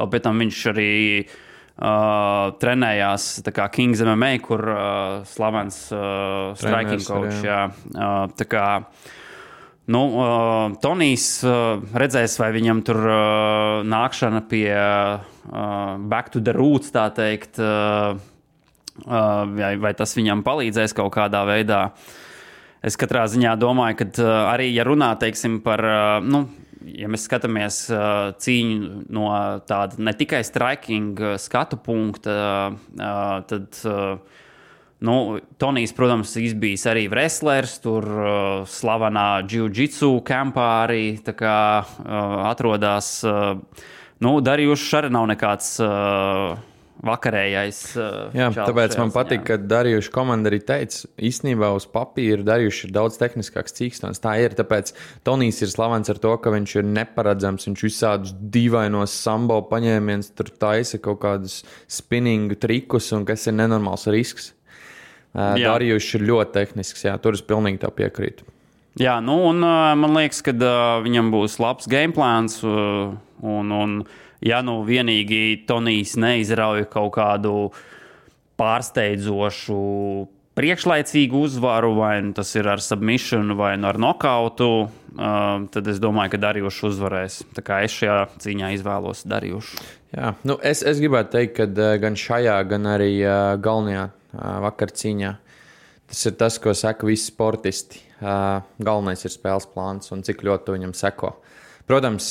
vēl pēc tam viņš arī trenējās tā kā Kings MMA, kur slavens striking coach. Tā kā, Tonijs redzēs, vai viņam tur nākšana pie back to the roots, tā teikt, vai tas viņam palīdzēs kaut kādā veidā. Es katrā ziņā domāju, ka arī, ja runā, teiksim, par, ja mēs skatāmies cīņu no tāda ne tikai striking skatu punkta, tad, Tonijs, protams, izbijis arī wrestlers, tur slavenā jiu-jitsu kampā arī tā kā atrodās. Darījuši arī nav nekāds vakarējais. Jā, tāpēc man patīk, ka Darījuši komanda arī teica, īstenībā uz papīra Darījuši ir daudz tehniskāks cīkstons. Tā ir, tāpēc Tonijs ir slavens ar to, ka viņš ir neparedzams, viņš visādus dīvainos sambo paņēmienus, tur taisa kaut kādus spinningu trikus, un kas ir nenormāls risks. Darījuši ir ļoti tehnisks, tur es pilnīgi tā piekrītu. Jā, un man liekas, ka viņam būs labs gameplāns, un ja vienīgi Tonijs neizrauj kaut kādu pārsteidzošu priekšlaicīgu uzvaru, vai tas ir ar submission, vai ar nokautu, tad es domāju, ka Darījuši uzvarēs. Tā kā es šajā cīņā izvēlos Darījušu. Jā, es gribētu teikt, ka gan šajā, gan arī galvenajā vakar cīņā tas ir tas, ko saka visi sportisti. Galvenais ir spēles plāns un cik ļoti viņam seko. Protams,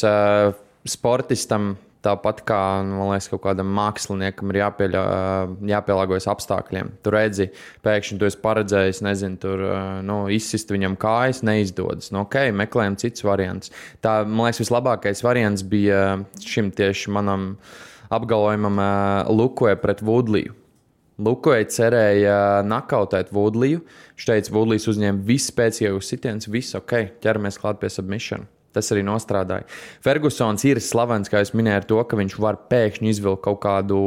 sportistam tāpat kā, man liekas, kaut kādam māksliniekam ir jāpielāgojas apstākļiem. Tu redzi, pēkšņi tu esi paredzējis, tur izsist viņam kājas, neizdodas. Meklējam cits variants. Tā, man liekas, vislabākais variants bija šim tieši manam apgalvojumam Lukoja pret Woodleyu. Lukoja cerēja nakautēt Woodleyu. Viņš teica, Woodlejs uzņēma visu spēcīgākus sitienus, visu ķeramies klāt pie submission. Tas arī nostrādāja. Fergusons ir slavens, kā jūs minējāt, ar to, ka viņš var pēkšņi izvilkt kaut kādu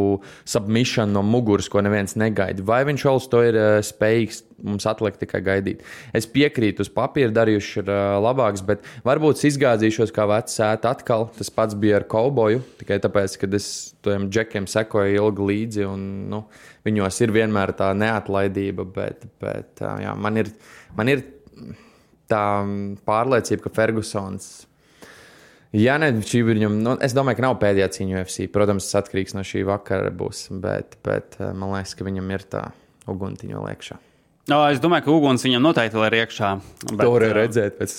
submission no muguras, ko neviens negaida. Vai viņš vēl uz to ir spējīgs, mums atliek tikai gaidīt. Es piekrītu, uz papīra Darījuši ir labāks, bet varbūt es izgāzīšos kā vecs ēta atkal. Tas pats bija ar Kauboju, tikai tāpēc, ka es tiem džekiem sekoju ilgi līdzi, un viņos ir vienmēr tā neatlaidība, bet jā, man ir tā pārliecība, ka Fergusons, es domāju, ka nav pēdējā cīņa UFC. Protams, tas atkarīgs no šī vakara būs, bet man liekas, ka viņam ir tā uguntiņa vēl iekšā. Es domāju, ka uguns viņam noteikti vēl ir iekšā. To varēja redzēt pēc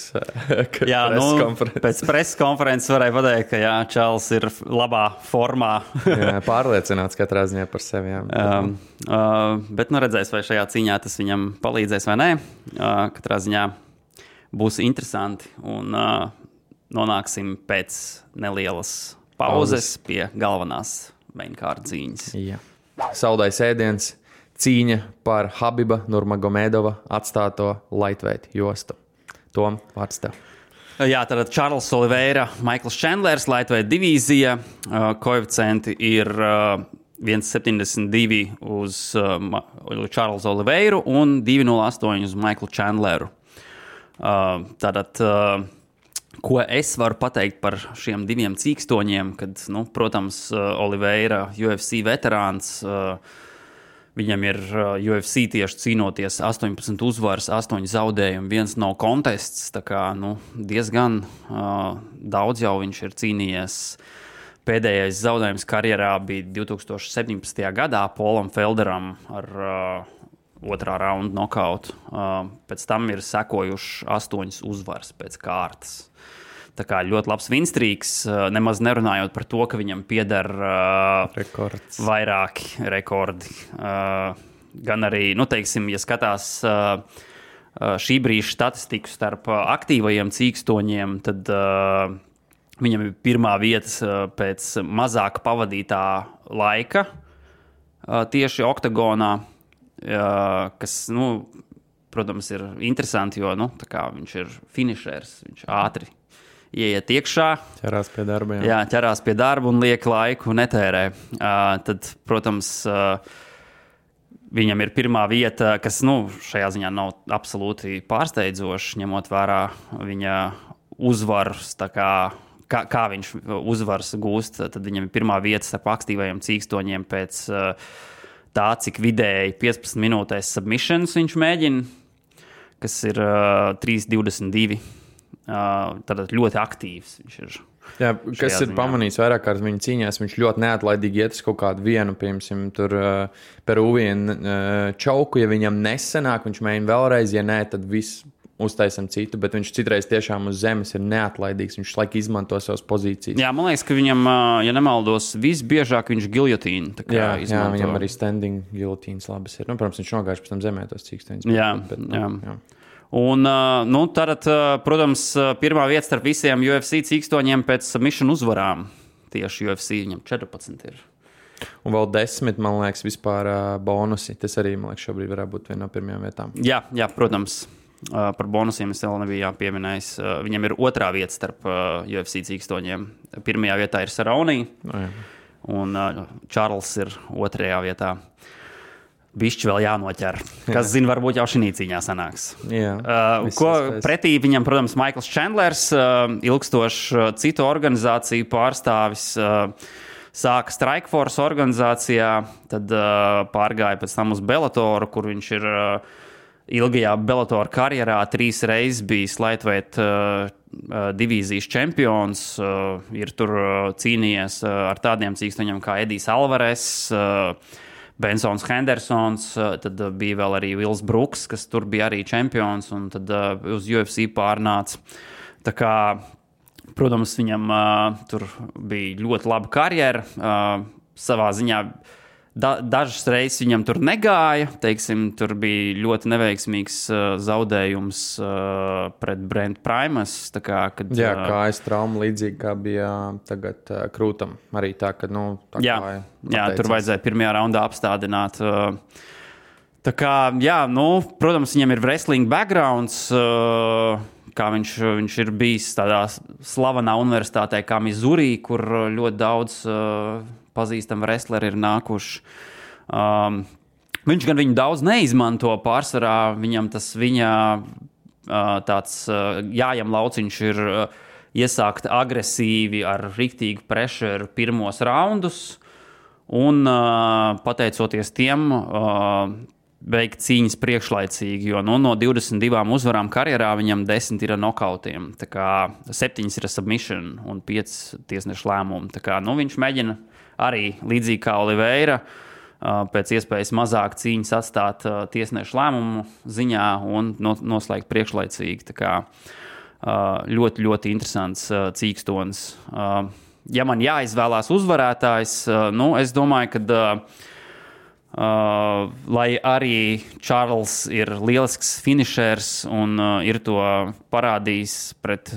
preskonferences. Pēc preskonferences varēja pateikt, ka Čāls ir labā formā. Pārliecināts katrā ziņā par sevi. Bet redzēs, vai šajā cīņā tas viņam palīdzēs vai nē. Katrā ziņā būs interesanti. Un nonāksim pēc nelielas pauzes pie galvenās mainkārta cīņas. Jā. Saldais ēdiens, cīņa par Habiba Nurmagomedova atstāto lightweight jostu. Tom, vārds tev. Jā, tad Čārls Oliveira, Maikls Čendlers, lightweight divīzija. Koeficienti ir 1,72 uz Čārlsu Oliveiru un 2,08 uz Maiklu Čendleru. Tātad, ko es varu pateikt par šiem diviem cīkstoņiem, kad, protams, Oliveira, UFC veterāns, viņam ir UFC tieši cīnoties 18 uzvaras, 8 zaudējumi, 1 no kontests, tā kā, diezgan daudz jau viņš ir cīnījies. Pēdējais zaudējums karjerā bija 2017. gadā Polam Felderam ar otrā raunda nokautu. Pēc tam ir sekojuši 8 uzvaras pēc kārtas. Tā kā ļoti labs vinstrīks, nemaz nerunājot par to, ka viņam pieder vairāki rekordi. Gan arī, teiksim, ja skatās šī brīža statistiku starp aktīvajiem cīkstoņiem, tad viņam ir pirmā vieta pēc mazāk pavadītā laika tieši oktagonā, kas, protams, ir interesanti, jo tā kā viņš ir finišers, viņš ātri ieiet iekšā. Ķerās pie darba. Jā, ķerās pie darba un liek laiku netērē. Tad, protams, viņam ir pirmā vieta, kas šajā ziņā nav absolūti pārsteidzoši, ņemot vērā viņa uzvaras, kā viņš uzvaras gūst. Tad viņam ir pirmā vieta starp aktīvajiem cīkstoņiem pēc tā, cik vidēji 15 minūtēs submissions viņš mēģina, kas ir 3,22. Tātad ļoti aktīvs viņš ir. Jā, kas ir pamanījis vairāk kārt viņa cīņās, viņš ļoti neatlaidīgi iet uz kaut kādu vienu, piemēram, tur Peruvienu čauku, ja viņam nesanāk, viņš mēģina vēlreiz, ja nē, tad viss uztaisam citu, bet viņš citreiz tiešām uz zemes ir neatlaidīgs, viņš laik izmanto savas pozīcijas. Jā, man liekas, ka viņam, ja nemaldos, visbiežāk viņš giljotīnu. Jā, viņam arī standing giljotīnas labas ir. Protams, viņš nogājuši pēc tam zemē tos cīkstoņus. Jā. Un, tad, protams, pirmā vieta starp visiem UFC cīkstoņiem pēc submission uzvarām. Tieši UFC viņam 14 ir. Un vēl 10, man liekas, vispār bonusi. Tas arī, man liekas, šobrīd varētu būt viena no pirmajām vietām. Jā, protams. Par bonusiem es vēl nebiju jāpieminējis. Viņam ir otrā vieta starp UFC cīkstoņiem. Pirmajā vietā ir Cerrone, un Čārls ir otrajā vietā. Bišķi vēl jānoķer. Kas zina, varbūt jau šī cīņā sanāks. Ko pretī viņam, protams, Maikls Čendlers, ilgstošs citu organizāciju pārstāvis, sāka Strikeforce organizācijā, tad pārgāja pēc tam uz Bellatoru, kur viņš ir ilgajā Bellator karjerā 3 reizes bijis lightweight divīzijas čempions, ir tur cīnījies ar tādiem cīkstoņiem kā Edijs Alvarez, Bensons Hendersons, tad bija vēl arī Vils Bruks, kas tur bija arī čempions, un tad uz UFC pārnāca. Tā kā, protams, viņam tur bija ļoti laba karjera, savā ziņā dažas reizes viņam tur negāja, teiksim, tur bija ļoti neveiksmīgs zaudējums pret Brent Primus. Kā trauma līdzīgi kā bija tagad Krūtam. Arī tā, ka, tur vajadzēja pirmajā raundā apstādināt. Tā kā, protams, viņam ir wrestling backgrounds, kā viņš ir bijis tādā slavenā universitātē kā Missouri, kur ļoti daudz pazīstami wrestleri ir nākuši. Viņš gan viņu daudz neizmanto pārsvarā, viņam tas tāds jājam lauciņš ir iesākt agresīvi ar riktīgu pressure pirmos raundus un pateicoties tiem veikt cīņas priekšlaicīgi, jo no 22 uzvarām karjerā viņam 10 ir nokautiem, tā kā 7 ir submission un 5 tiesnešu lēmumi. Tā kā, viņš mēģina arī līdzīgi kā Oliveira pēc iespējas mazāk cīņas atstāt tiesnešu lēmumu ziņā un noslēgt priekšlaicīgi. Tā kā ļoti, ļoti interesants cīkstonis. Ja man jāizvēlās uzvarētājs, es domāju, ka Lai arī Čārls ir lielisks finišers un ir to parādījis pret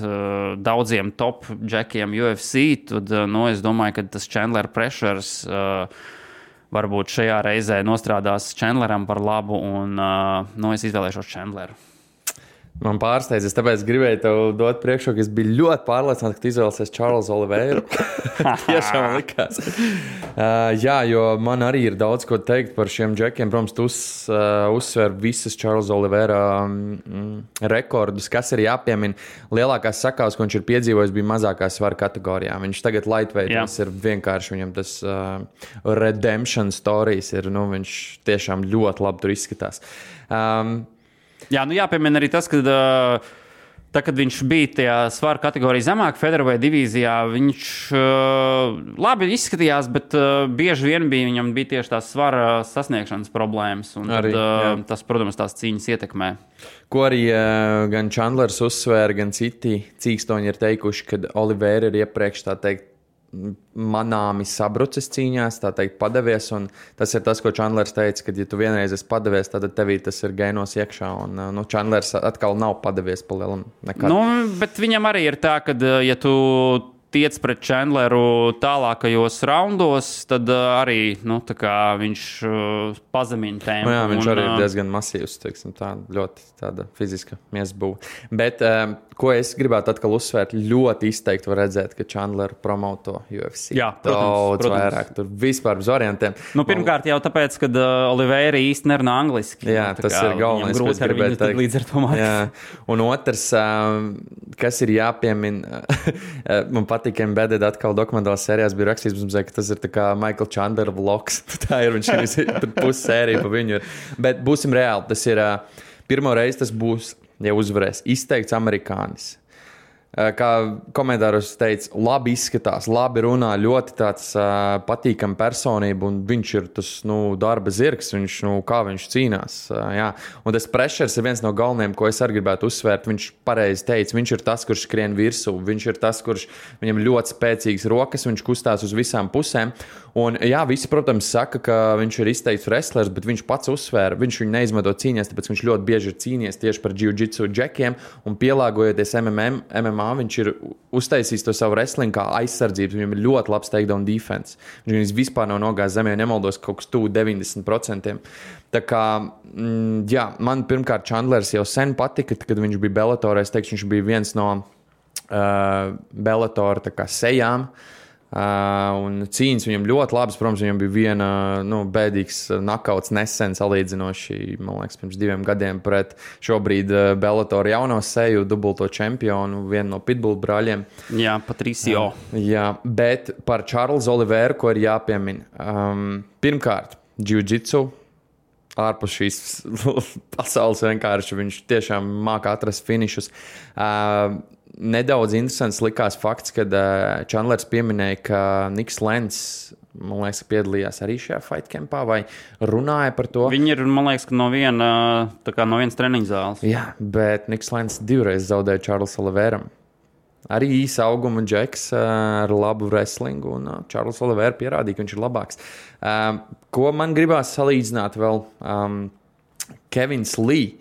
daudziem top džekiem UFC, tad es domāju, ka tas Chandler pressures varbūt šajā reizē nostrādās Chandleram par labu, un es izvēlēšos Chandleru. Man pārsteidz, tāpēc gribēju tev dot priekšroku. Es biju ļoti pārliecināts, ka tu izvēlēsies Čārlzu Oliveru. Tiešām likās. Jā, jo man arī ir daudz ko teikt par šiem džekiem. Protams, tu uzsver visas Čārlza Olivera rekordus, kas ir jāpiemina. Lielākās sakāves, ko viņš ir piedzīvojis, bija mazākās svara kategorijā. Viņš tagad lightweightos ir vienkārši, viņam tas redemption stories ir, viņš tiešām ļoti labi tur izskatās. Jā, jāpiemina arī tas, ka kad viņš bija tajā svara kategorijā zemāk, featherweight divīzijā, viņš labi izskatījās, bet bieži vien viņam bija tieši tās svara sasniegšanas problēmas. Arī, tas, protams, tās cīņas ietekmē. Ko arī gan Chandlers uzsvēra, gan citi cīkstoņi ir teikuši, ka Oliveira ir iepriekš, tā teikt, manāmi sabrucis cīņās, tā teikt, padavies. Un tas ir tas, ko Chandlers teica, ka, ja tu vienreiz esi padavies, tad tevī tas ir gainos iekšā. Un Chandlers atkal nav padavies pa lielam nekad. Bet viņam arī ir tā, ka, ja tu tiec pret Chandleru tālākajos raundos, tad arī viņš pazemina tēmu. Jā, viņš arī ir diezgan masīvs, ļoti tāda fiziska miesbūve. Bet ko es gribētu atkal uzsvērt, ļoti izteikti var redzēt, ka Chandleru promoto UFC. Jā, protams. Vairāk, tur vispār bez variantiem. Pirmkārt jau tāpēc, ka Oliveira īsti nerunā angliski. Jā, tas ir galvenais, ko es gribētu teikt. Līdz ar to mācīt. Un otrs, kas ir jāpiemina, man patīk, Embedded atkal dokumentālās sērijās bija rakstīts, ka tas ir tā kā Michael Chandler vlogs. Tā ir, viņš ir pusi sērija pa viņu. Bet būsim reāli, tas ir pirmo reizi tas būs, ja uzvarēs, izteikts amerikānis. Kā komentāros teica, labi izskatās, labi runā, ļoti tāds patīkama personība, un viņš ir tas darba zirgs, kā viņš cīnās. Jā. Un tas pressures ir viens no galvenajiem, ko es arī gribētu uzsvērt. Viņš pareizi teica, viņš ir tas, kurš skrien virsū, viņš ir tas, kurš viņam ļoti spēcīgas rokas, viņš kustās uz visām pusēm. Un jā, visi, protams, saka, ka viņš ir izteikts wrestlers, bet viņš pats uzsvēra, viņš viņu neizmanto cīņās, tāpēc viņš ļoti bieži ir cīnījies tieši par jiu-jitsu džekiem, un pielāgojoties MMA, viņš ir uztaisījis to savu wrestling kā aizsardzības, viņam ir ļoti labs takedown defense. Viņš vispār nav nogājis zemē, nemaldos kaut kas tuvu 90%. Tā kā, jā, man pirmkārt Chandlers jau sen patika, kad viņš bija Bellatorā, es teikšu, viņš bija viens no Bellatora tā kā sejām. Un cīņas viņam ļoti labas. Protams, viņam bija viena bēdīgs nakauts nesen salīdzinoši, man liekas, pirms 2 gadiem pret šobrīd Bellator jauno seju, dubulto čempionu, vienu no Pitbull brāļiem. Jā, Patricio. Jā, bet par Čārlzu Oliveru, ko ir jāpiemina. Pirmkārt, jiu-jitsu. Ārpus šīs pasaules vienkārši viņš tiešām māca atrast finišus. Nedaudz interesants likās fakts, kad Chandlers pieminēja, ka Niks Lens, man liekas, piedalījās arī šajā fight campā vai runāja par to. Viņi ir, man liekas, no vienas treniņu zāles. Jā, bet Niks Lens 2 reizes zaudēja Čārlzu Oliveram. Arī īsa auguma džeks ar labu wrestlingu, un Čārlz Olivera pierādīja, ka viņš ir labāks. Ko man gribās salīdzināt vēl? Kevins Lee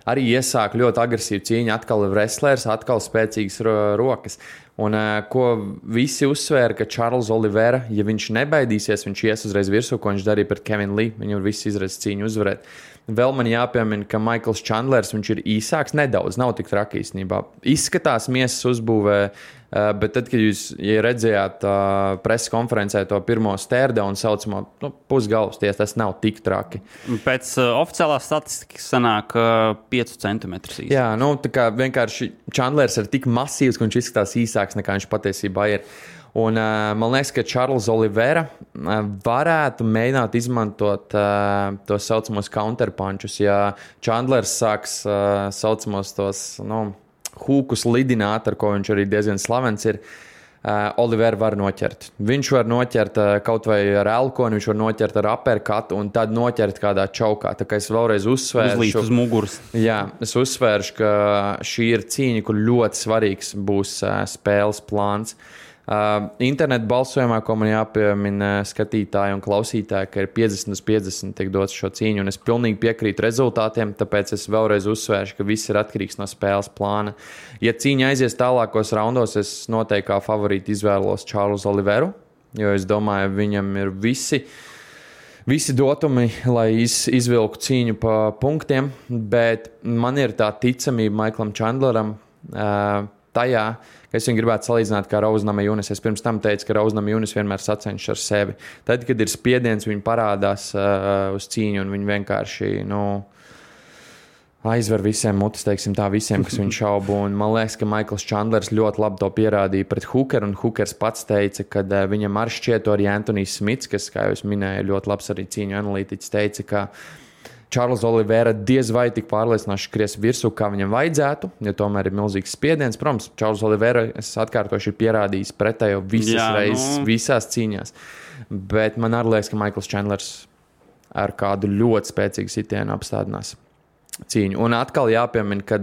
arī iesāka ļoti agresīvu cīņu, atkal wrestlers, atkal spēcīgas rokas. Un ko visi uzsvēra, ka Čārlz Olivera, ja viņš nebaidīsies, viņš ies uzreiz virsū, ko viņš darīja pret Kevinu Lee, viņu visu izredz cīņu uzvarēt. Vēl man jāpiemina, ka Michaels Chandlers, viņš ir īsāks nedaudz, nav tik traki īstenībā. Izskatās miesas uzbūvē, bet tad, kad jūs redzējāt preses konferencē to pirmo stērdaunu saucamo pusgalvas, tas nav tik traki. Pēc oficiālās statistikas sanāk 5 centimetrus īsāks. Jā, tā kā vienkārši Chandlers ir tik masīvs, ka viņš izskatās īsāks nekā viņš patiesībā ir. Un man liekas, ka Čārlz Olivera varētu mēģināt izmantot tos saucamos counterpunčus. Ja Chandlers sāks saucamos tos hūkus lidināt, ar ko viņš arī diezgan slavens ir, Olivera var noķert. Viņš var noķert kaut vai ar elkoni, viņš var noķert ar uppercut un tad noķert kādā čaukā. Tā kā es vēlreiz uzsvēršu. Uzlīst uz muguras. Jā, es uzsvēršu, ka šī ir cīņa, kur ļoti svarīgs būs spēles plāns. Internetu balsojumā, ko man jāpiemina skatītāji un klausītāji, ka ir 50-50 tiek dots šo cīņu, un es pilnīgi piekrītu rezultātiem, tāpēc es vēlreiz uzsvēršu, ka viss ir atkarīgs no spēles plāna. Ja cīņa aizies tālākos raundos, es noteikti kā favorīti izvēlos Čārlzu Oliveru, jo es domāju, viņam ir visi dotumi, lai izvilku cīņu pa punktiem, bet man ir tā ticamība Maiklam Čandleram tajā, ka es viņu gribētu salīdzināt kā Rose Namajunas. Es pirms tam teicu, ka Rose Namajunas vienmēr sacenšas ar sevi. Tad, kad ir spiediens, viņi parādās uz cīņu un viņi vienkārši, aizver visiem mutis, teiksim tā, visiem, kas viņu šaubu. Un man liekas, ka Maikls Čandlers ļoti labi to pierādīja pret Hookeru, un Hookers pats teica, ka viņam ar šķieto arī Antonijs Smits, kas, kā jau es minēju, ļoti labs arī cīņu analītiķis, teica, ka Čārls Olivera diez vai tik pārliecinoši skries virsū, kā viņam vajadzētu, jo tomēr ir milzīgs spiediens. Protams, Čārls Olivera, es atkārtoši, ir pierādījis pretējo reizes, visās cīņās. Bet man arī liekas, ka Maikls Čandlers ar kādu ļoti spēcīgu sitienu apstādinās cīņu. Un atkal jāpiemina, ka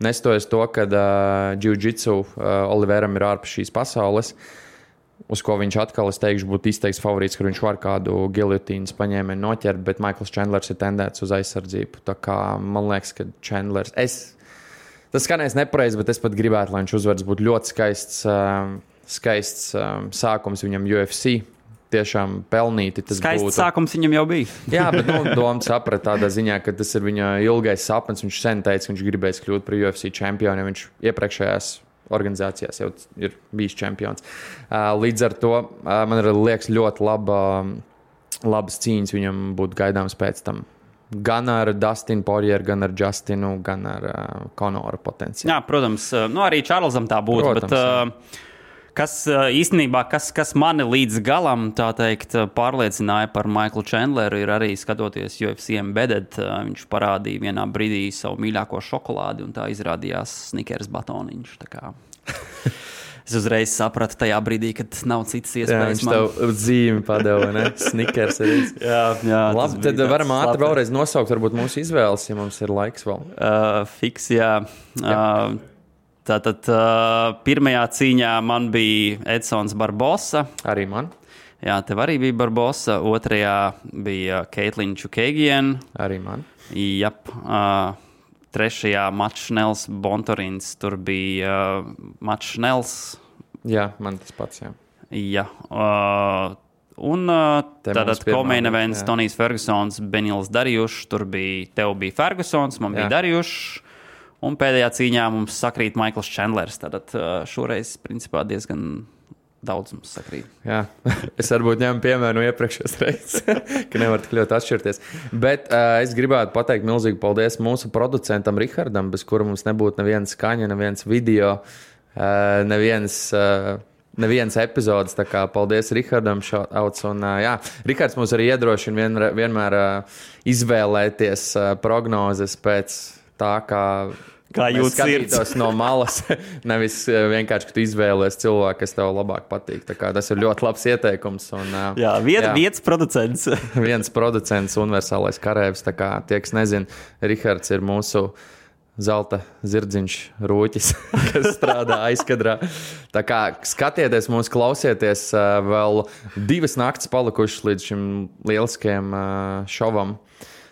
nestojas to, ka jiu-jitsu Oliveram ir ārpus šīs pasaules, uz ko viņš atkal, es teikšu, būtu izteikts favorīts, ka viņš var kādu giljotīnas paņēmienu noķert, bet Maikls Čandlers ir tendēts uz aizsardzību. Tā kā man liekas, ka Čandlers... Tas skanēs nepareizi, bet es pat gribētu, lai viņš uzvaras būtu ļoti skaists sākums viņam UFC. Tiešām pelnīti tas skaists būtu. Sākums viņam jau bija. Jā, bet doma saprat tādā ziņā, ka tas ir viņa ilgais sapnis. Viņš sen teica, ka viņš gribēs kļūt par UFC čempionu, viņš iepriekšējās organizācijās jau ir bijis čempions. Līdz ar to man liekas ļoti labas cīņas viņam būtu gaidāmas pēc tam. Gan ar Dustinu Poirieru, gan ar Justinu, gan ar Conoru potenciāli. Jā, protams. Arī Čārlzam tā būtu, protams, bet... Kas īstenībā, kas mani līdz galam, tā teikt, pārliecināja par Maiklu Čandleru, ir arī skatoties UFC Embedded. Viņš parādīja vienā brīdī savu mīļāko šokolādi, un tā izrādījās Snickers batoniņš. Tā kā es uzreiz sapratu tajā brīdī, kad nav citas iespējas. Jā, viņš tev zīmi padeva, ne? Snickers arī. Jā. Labi, tad varam ātri vēlreiz nosaukt varbūt mūsu izvēles, ja mums ir laiks vēl. Fiks, jā. Tātad pirmajā cīņā man bija Edsons Barbosa. Arī man. Jā, tev arī bija Barbosa. Otrajā bija Caitlin Chookagian. Arī man. Jap. Trešajā Mats Šnels Bontorins. Tur bija Mats Šnels. Jā, man tas pats, jā. Jā. Un tātad co-main events Tonijs Fergusons, Benils Darjušs. Tur tev bija Fergusons, man bija Darjušs. Un pēdējā cīņā mums sakrīt Maikls Čandlers. Tātad šoreiz, principā, diezgan daudz mums sakrīt. Jā, es varbūt ņemu piemēru no iepriekšējās reizes, ka nevar tik ļoti atšķirties. Bet es gribētu pateikt milzīgi paldies mūsu producentam Rihardam, bez kura mums nebūtu neviena skaņa, neviens video, neviens epizodes. Tā kā paldies Rihardam šauts. Un Rihards mums arī iedrošina vienmēr izvēlēties prognozes pēc tā, kā jūs skatītos no malas, nevis vienkārši, ka tu izvēlies cilvēku, kas tev labāk patīk. Tā kā tas ir ļoti labs ieteikums. Un, viens producents. Viens producents, universālais karēvis. Tā kā tie, kas nezin, Rihards ir mūsu zelta zirdziņš rūķis, kas strādā aizkadrā. Tā kā skatieties mūs, klausieties, vēl 2 naktis palikušas līdz šim lieliskajam šovam.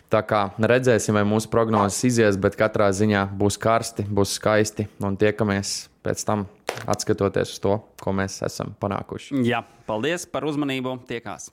Tā kā redzēsim, vai mūsu prognozes izies, bet katrā ziņā būs karsti, būs skaisti un tiekamies pēc tam atskatoties uz to, ko mēs esam panākuši. Jā, paldies par uzmanību. Tiekās.